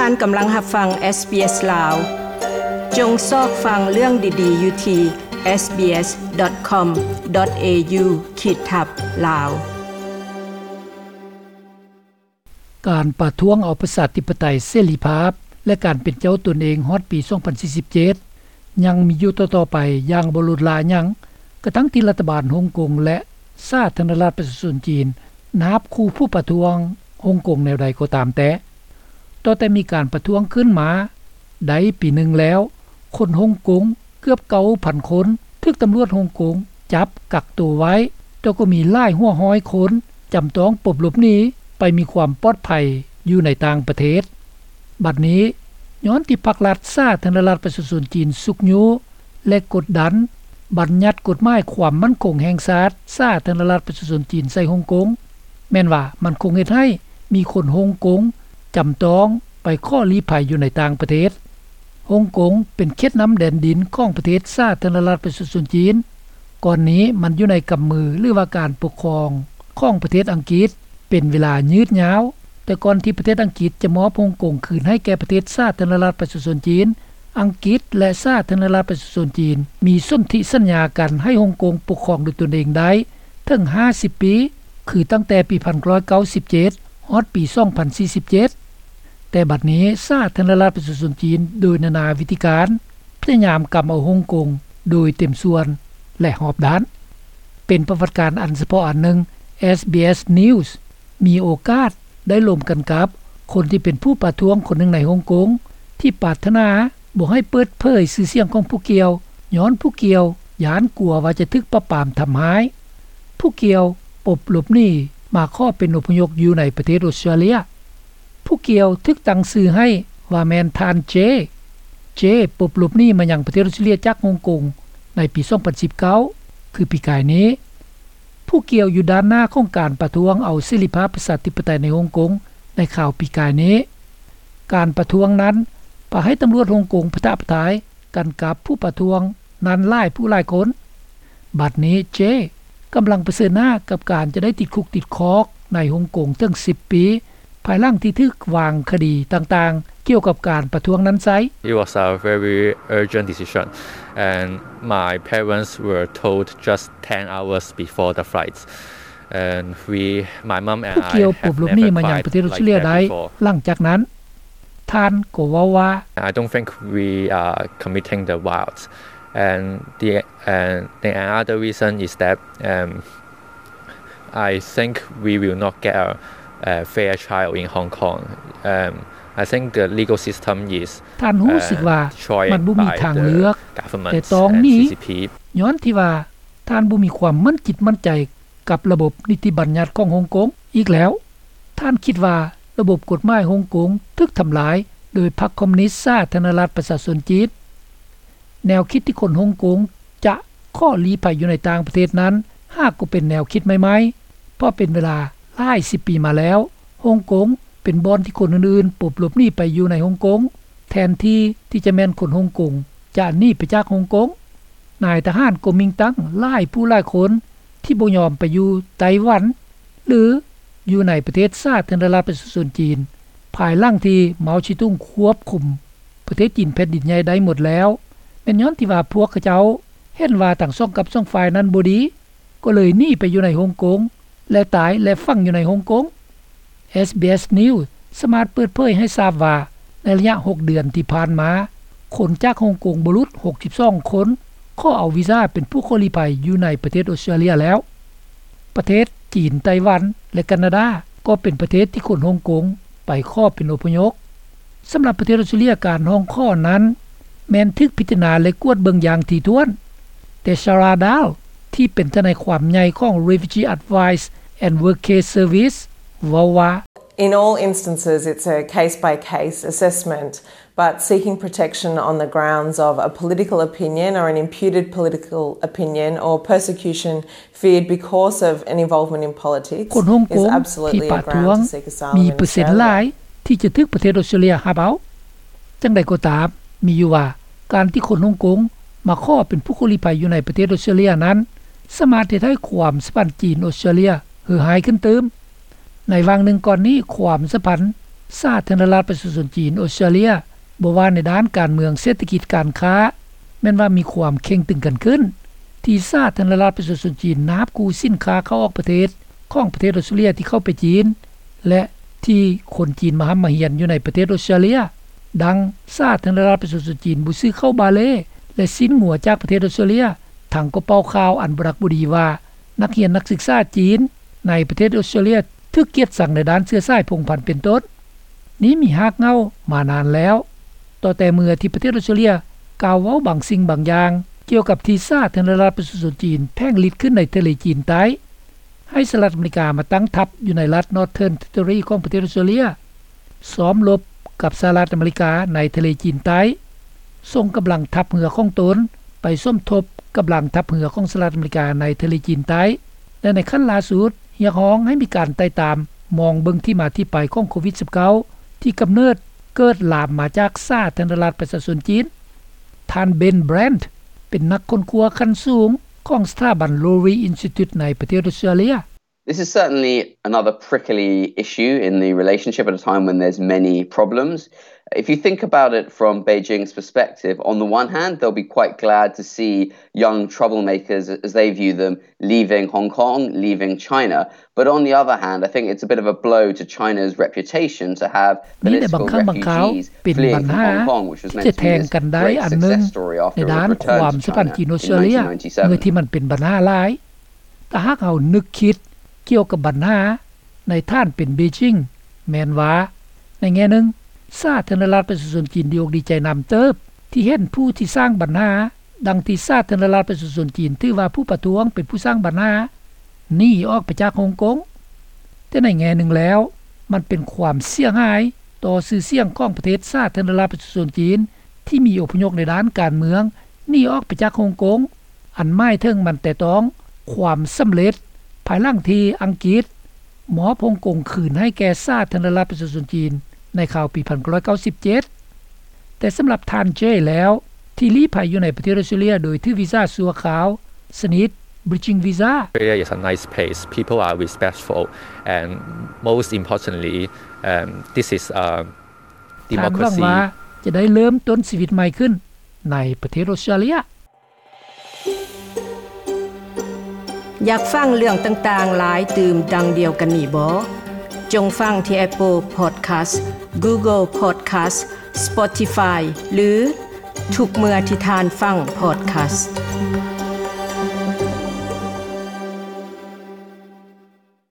ທ່ານກຳລັງຮັບຟັງ SBS ລາວ. ຈົ່ງຊອກຟັງເລື່ອງດີໆຢູ່ທີ່ SBS.com.au ຂີດທັບ ລາວ. ການປະທ້ວງເອົາປະຊາທິປະໄຕ, ເສລີພາບ ແລະ ການເປັນເຈົ້າຕົນເອງຮອດປີສອງພັນສີ່ສິບເຈັດ ຍັງມີຢູ່ຕໍ່ໆໄປຢ່າງບໍ່ຫຼຸດລາຫຍັງ, ກະທັ່ງທີ່ລັດຖະບານຮົງກົງ ແລະ ສາທາລະນະລັດປະຊາຊົນຈີນ ນາບຂູ່ຜູ້ປະທ້ວງຮົງກົງແນວໃດກໍຕາມແຕ່. ຕໍ່ແຕ່ມີການປະທ້ວງຂຶ້ນມາໄດ້ປີໜຶ່ງແລ້ວ, ຄົນຮົງກົງເກືອບເກົ້າພັນຄົນ ຖືກຕຳຫຼວດຮົງກົງຈັບກັກໂຕໄວ້, ແຕ່ກໍມີຫຼາຍຫົວຮ້ອຍຄົນຈຳຕ້ອງປົບຫຼົບໜີໄປມີຄວາມປອດໄພຢູ່ໃນຕ່າງປະເທດ. ບັດນີ້, ຍ້ອນທີ່ພັກລັດສາທາລະນະລັດປະຊາຊົນຈີນຊຸກຍູ້ ແລະ ກົດດັນບັນຍັດກົດໝາຍຄວາມໝັ້ນຄົງແຫ່ງຊາດສາທາລະນະລັດປະຊາຊົນຈີນໃສ່ຮົງກົງ, ແມ່ນວ່າມັນຄົງເຮັດໃຫ້ມີຄົນຮົງກົງຈຳຕ້ອງໄປຂໍລີ້ໄພຢູ່ໃນຕ່າງປະເທດ. ຮົງກົງເປັນເຂດນ້ຳແດນດິນຂອງປະເທດສາທາລະນະລັດປະຊາຊົນຈີນ. ກ່ອນນີ້ມັນຢູ່ໃນກຳມື ຫຼືວ່າການປົກຄອງຂອງປະເທດອັງກິດເປັນເວລາຍືດຍາວ, ແຕ່ກ່ອນທີ່ປະເທດອັງກິດຈະມອບຮົງກົງຄືນໃຫ້ແກ່ປະເທດສາທາລະນະລັດປະຊາຊົນຈີນ, ອັງກິດ ແລະ ສາທາລະນະລັດປະຊາຊົນຈີນມີສົນທິສັນຍາກັນໃຫ້ຮົງກົງປົກຄອງໂດຍຕົນເອງໄດ້ເຖິງຫ້າສິບປີ, ຄືຕັ້ງແຕ່ປີໜຶ່ງພັນເກົ້າຮ້ອຍເກົ້າສິບເຈັດ ຮອດປີສອງພັນສີ່ສິບເຈັດ. ແຕ່ບັດນີ້ສາທາລະນະລັດປະຊາຊົນຈີນໂດຍນານາວິທີການ ພະຍາຍາມກຳເອົາຮົງກົງໂດຍເຕັມສ່ວນ ແລະ ຮອບດ້ານ. ເປັນປະຫວັດການອັນສະເພາະອັນໜຶ່ງ, SBS News ມີໂອກາດໄດ້ລົມກັນກັບຄົນທີ່ເປັນຜູ້ປະທ້ວງຄົນໜຶ່ງໃນຮົງກົງ ທີ່ປາດຖະໜາບໍ່ໃຫ້ເປີດເຜີຍຊື່ສຽງຂອງຜູ້ກ່ຽວ, ຍ້ອນຜູ້ກ່ຽວຢ້ານກົວວ່າຈະຖືກປາບປາມທຳຮ້າຍ. ຜູ້ກ່ຽວປົບຫຼົບໜີມາຂໍເປັນອົບພະຍົບຢູ່ໃນປະເທດອົດສະຕຣາເລຍ. ຜູ້ກ່ຽວຖືກຕັ້ງຊື່ໃຫ້ວ່າແມ່ນທ່ານເຈ. ເຈ ປົບຫຼົບໜີມາຍັງປະເທດອົດສະຕຣາເລຍຈາກຮົງກົງໃນປີສອງພັນສິບເກົ້າ ຄືປີກາຍນີ້. ຜູ້ກ່ຽວຢູ່ດ້ານໜ້າຂອງການປະທ້ວງເອົາເສລີພາບປະຊາທິປະໄຕໃນຮົງກົງໃນຄາວປີກາຍນີ້. ການປະທ້ວງນັ້ນພາໃຫ້ຕຳຫຼວດຮົງກົງປະທະປະທາຍກັນກັບຜູ້ປະທ້ວງນັ້ນຫຼາຍຜູ້ຫຼາຍຄົນ. ບັດນີ້ເຈກຳລັງປະເຊີນໜ້າກັບການຈະໄດ້ຕິດຄຸກຕິດຄອກໃນຮົງກົງເຖິງສິບປີ ພາຍຫຼັງທີ່ຖືກວາງຄະດີຕ່າງໆກ່ຽວກັບການປະທ້ວງນັ້ນໃຊ້. It was a very urgent decision, and my parents were told just ten hours before the flight, and we, my mom and I have never cried like that before. ຜູ້ກ່ຽວປົບຫຼົບໜີມາຍັງປະເທດອົດສະຕຣາເລຍໄດ້ຫຼັງຈາກນັ້ນ. ທ່ານກໍເວົ້າວ່າ, I don't think we are committing the violence, and the, and the another reason is that, um, I think we will not get a, a fair trial in Hong Kong. Um, I think the legal system is, ທ່ານຮູ້ສຶກວ່າ uh, destroyed ມັນບໍ່ມີທາງເລືອກ by the government ແຕ່ຕ້ອງໜີ and C C P. ຍ້ອນທີ່ວ່າທ່ານບໍ່ມີຄວາມໝັ້ນຈິດໝັ້ນໃຈ ກັບລະບົບນິຕິບັນຍັດຂອງຮົງກົງ. ອີກແລ້ວ, ທ່ານຄິດວ່າລະບົບກົດໝາຍຮົງກົງຖືກທຳລາຍໂດຍພັກຄອມມູນິດສາທາລະນະລັດປະຊາຊົນຈີນ. ແນວຄິດທີ່ຄົນຮົງກົງຈະຂໍລີ້ໄພຢູ່ໃນຕ່າງປະເທດນັ້ນ ຫາກກໍເປັນແນວຄິດໃໝ່ໆ, ເພາະເປັນເວລາຫຼາຍສິບປີມາແລ້ວ, ຮົງກົງເປັນບ່ອນທີ່ຄົນອື່ນໆປົບຫຼົບໜີໄປຢູ່ໃນຮົງກົງ ແທນທີ່ທີ່ຈະແມ່ນຄົນຮົງກົງຈະໜີໄປຈາກຮົງກົງ. ນາຍທະຫານກໍມິງຕັ້ງຫຼາຍຜູ້ຫຼາຍຄົນ ທີ່ບໍ່ຍອມໄປຢູ່ໄຕ້ຫວັນ ຫຼື ຢູ່ໃນປະເທດສາທາລະນະລັດປະຊາຊົນຈີນ ພາຍຫຼັງທີ່ເມົາຊີຕຸງຄວບຄຸມປະເທດຈີນແຜ່ນດິນໃຫຍ່ໄດ້ໝົດແລ້ວ. ແມ່ນຍ້ອນທີ່ວ່າພວກເຂົາເຈົ້າເຫັນວ່າທັງສອງກັບສອງຝ່າຍນັ້ນບໍ່ດີ, ກໍເລີຍໜີໄປຢູ່ໃນຮົງກົງ ແລະ ຕາຍ ແລະ ຝັງຢູ່ໃນຮົງກົງ. SBS News ສາມາດເປີດເຜີຍໃຫ້ຊາບວ່າ ໃນໄລຍະຫົກເດືອນທີ່ຜ່ານມາ, ຄົນຈາກຮົງກົງບໍ່ຫຼຸດຫົກສິບສອງຄົນ ຂໍເອົາວີຊາເປັນຜູ້ຂໍລີ້ໄພຢູ່ໃນປະເທດອົດສະຕຣາເລຍແລ້ວ. ປະເທດຈີນ, ໄຕ້ຫວັນ ແລະ ການາດາ ກໍເປັນປະເທດທີ່ຄົນຮົງກົງໄປຂໍເປັນອົບພະຍົບ. ສຳລັບປະເທດອົດສະຕຣາເລຍ, ການຮ້ອງຂໍນັ້ນແມ່ນຖືກພິຈາລະນາ ແລະ ກວດເບິ່ງຢ່າງຖີ່ຖ້ວນ. ແຕ່ Sarah Dahl ທີ່ເປັນທະນາຍຄວາມໃຫຍ່ຂອງ Refugee Advice and Workcase Service ເວົ້າວ່າ, In all instances, it's a case-by-case assessment, but seeking protection on the grounds of a political opinion or an imputed political opinion or persecution feared because of an involvement in politics is absolutely a ground to seek asylum in Australia. ຄົນຮົງກົງທີ່ປະທ້ວງມີເປີເຊັນຫຼາຍທີ່ຈະຖືກປະເທດອົດສະຕຣາເລຍຮັບເອົາ. ຈັ່ງໃດກໍຕາມ, ມີຢູ່ວ່າການທີ່ຄົນຮົງກົງມາຂໍເປັນຜູ້ຂໍລີ້ໄພຢູ່ໃນປະເທດອົດສະຕຣາເລຍນັ້ນ ສາມາດເຮັດໃຫ້ຄວາມສຳພັນຈີນ-ອົດສະຕຣາເລຍເຫື່ອຫາຍຂຶ້ນຕື່ມ. ໃນຫວ່າງໜຶ່ງກ່ອນນີ້, ຄວາມສຳພັນ ສາທາລະນະລັດປະຊາຊົນຈີນ ອອສເຕຣເລັຍ ບໍ່ວ່າໃນດ້ານການເມືອງ, ເສດຖະກິດ, ການຄ້າ ແມ່ນວ່າມີຄວາມເຄັ່ງຕຶງກັນຂຶ້ນ ທີ່ສາທາລະນະລັດປະຊາຊົນຈີນນະຮັບກູ້ສິນຄ້າເຂົ້າອອກປະເທດ ຂອງປະເທດອອສເຕຣເລັຍທີ່ເຂົ້າໄປຈີນ ແລະ ທີ່ຄົນຈີນມາຮ່ຳມາຮຽນຢູ່ໃນປະເທດອອສເຕຣເລັຍ. ດັ່ງ ສາທາລະນະລັດປະຊາຊົນຈີນບໍ່ຊື້ເຂົ້າບາເລ ແລະ ຊີ້ນງົວຈາກປະເທດອອສເຕຣເລັຍ ທັງກໍເປົ່າຂ່າວອັນບໍ່ດັກບໍ່ດີວ່າ ນັກຮຽນນັກສຶກສາຈີນໃນປະເທດອອສເຕຣເລັຍ ຖືກກຽດຊັງໃນດ້ານເຊື້ອສາຍພົງພັນເປັນຕົ້ນ. ນີ້ມີຮາກເຫງົ້າມານານແລ້ວ ຕໍ່ແຕ່ເມື່ອທີ່ປະເທດອອສເຕຣເລັຍກ່າວເວົ້າບາງສິ່ງບາງຢ່າງ ກ່ຽວກັບທີ່ສາທາລະນະລັດປະຊາຊົນຈີນແຜງລິດຂຶ້ນໃນທະເລຈີນໃຕ້ ໃຫ້ສະຫະລັດອາເມລິກາມາຕັ້ງທັບຢູ່ໃນລັດ Northern Territory ຂອງປະເທດອອສເຕຣເລັຍ ຊ້ອມລົບກັບສະຫະລັດອາເມລິກາໃນທະເລຈີນໃຕ້, ສົ່ງກຳລັງທັບເຮືອຂອງຕົນໄປສົມທົບກຳລັງທັບເຮືອຂອງສະຫະລັດອາເມລິກາໃນທະເລຈີນໃຕ້ ແລະ ໃນຂັ້ນລ່າສຸດ ຮຽກຮ້ອງໃຫ້ມີການໄຕ່ຕາມມອງເບິ່ງທີ່ມາທີ່ໄປຂອງໂຄວິດ-ສິບເກົ້າ ທີ່ກຳເນີດເກີດລາມມາຈາກສາທາລະນະລັດປະຊາຊົນຈີນ. ທ່ານ Ben Brandt ເປັນນັກຄົ້ນຄວ້າຂັ້ນສູງຂອງສະຖາບັນ Lowy Institute ໃນປະເທດອອສເຕຣເລັຍ. This is certainly another prickly issue in the relationship at a time when there's many problems. If you think about it from Beijing's perspective, on the one hand, they'll be quite glad to see young troublemakers, as they view them, leaving Hong Kong, leaving China. But on the other hand, I think it's a bit of a blow to China's reputation to have political refugees fleeing from Hong Kong, which was meant to be this great success story after it returned to China in nineteen ninety-seven. ເມື່ອທີ່ມັນເປັນບັນຫາຫຼາຍ ຖ້າຫາກເຮົານຶກຄິດກ່ຽວກັບບັນຫາໃນຖານເປັນເບຈິງ ແມ່ນວ່າ ໃນແງ່ໜຶ່ງ ສາທາລະນະລັດປະຊາຊົນຈີນດີອົກດີໃຈນຳເຕີບ ທີ່ເຫັນຜູ້ທີ່ສ້າງບັນຫາ ດັ່ງທີ່ສາທາລະນະລັດປະຊາຊົນຈີນຖືວ່າຜູ້ປະທ້ວງເປັນຜູ້ສ້າງບັນຫາ ໜີອອກໄປຈາກຮົງກົງ. ແຕ່ໃນແງ່ໜຶ່ງແລ້ວ ມັນເປັນຄວາມເສຍຫາຍຕໍ່ຊື່ສຽງຂອງປະເທດສາທາລະນະລັດປະຊາຊົນຈີນ ທີ່ມີອົບພະຍົບໃນດ້ານການເມືອງໜີອອກໄປຈາກຮົງກົງ ອັນໝາຍເຖິງມັນແຕະຕ້ອງຄວາມສຳເລັດ ພາຍຫຼັງທີ່ອັງກິດມອບຮົງກົງຄືນໃຫ້ແກ່ສາທາລະນະລັດປະຊາຊົນຈີນໃນຄາວປີໜຶ່ງພັນເກົ້າຮ້ອຍເກົ້າສິບເຈັດ. ແຕ່ສຳລັບທ່ານ Jay ແລ້ວ ທີ່ລີ້ໄພຢູ່ໃນປະເທດອອສເຕຣເລັຍໂດຍຖືວີຊາຊົ່ວຄາວ ຊະນິດ Bridging Visa. Australia is a nice place. People are respectful and most importantly, um, this is a ທ່ານຫວັງວ່າ ຈະໄດ້ເລີ່ມຕົ້ນຊີວິດໃໝ່ຂຶ້ນໃນປະເທດອອສເຕຣເລັຍ. ຢາກຟັງເລື່ອງຕ່າງໆຫຼາຍຕື່ມດັ່ງດຽວກັນນີ້ບໍ? ຈົ່ງຟັງທີ່ Apple Podcast, Google Podcast, Spotify ຫຼື ທຸກເມື່ອທີ່ທ່ານຟັງ Podcast.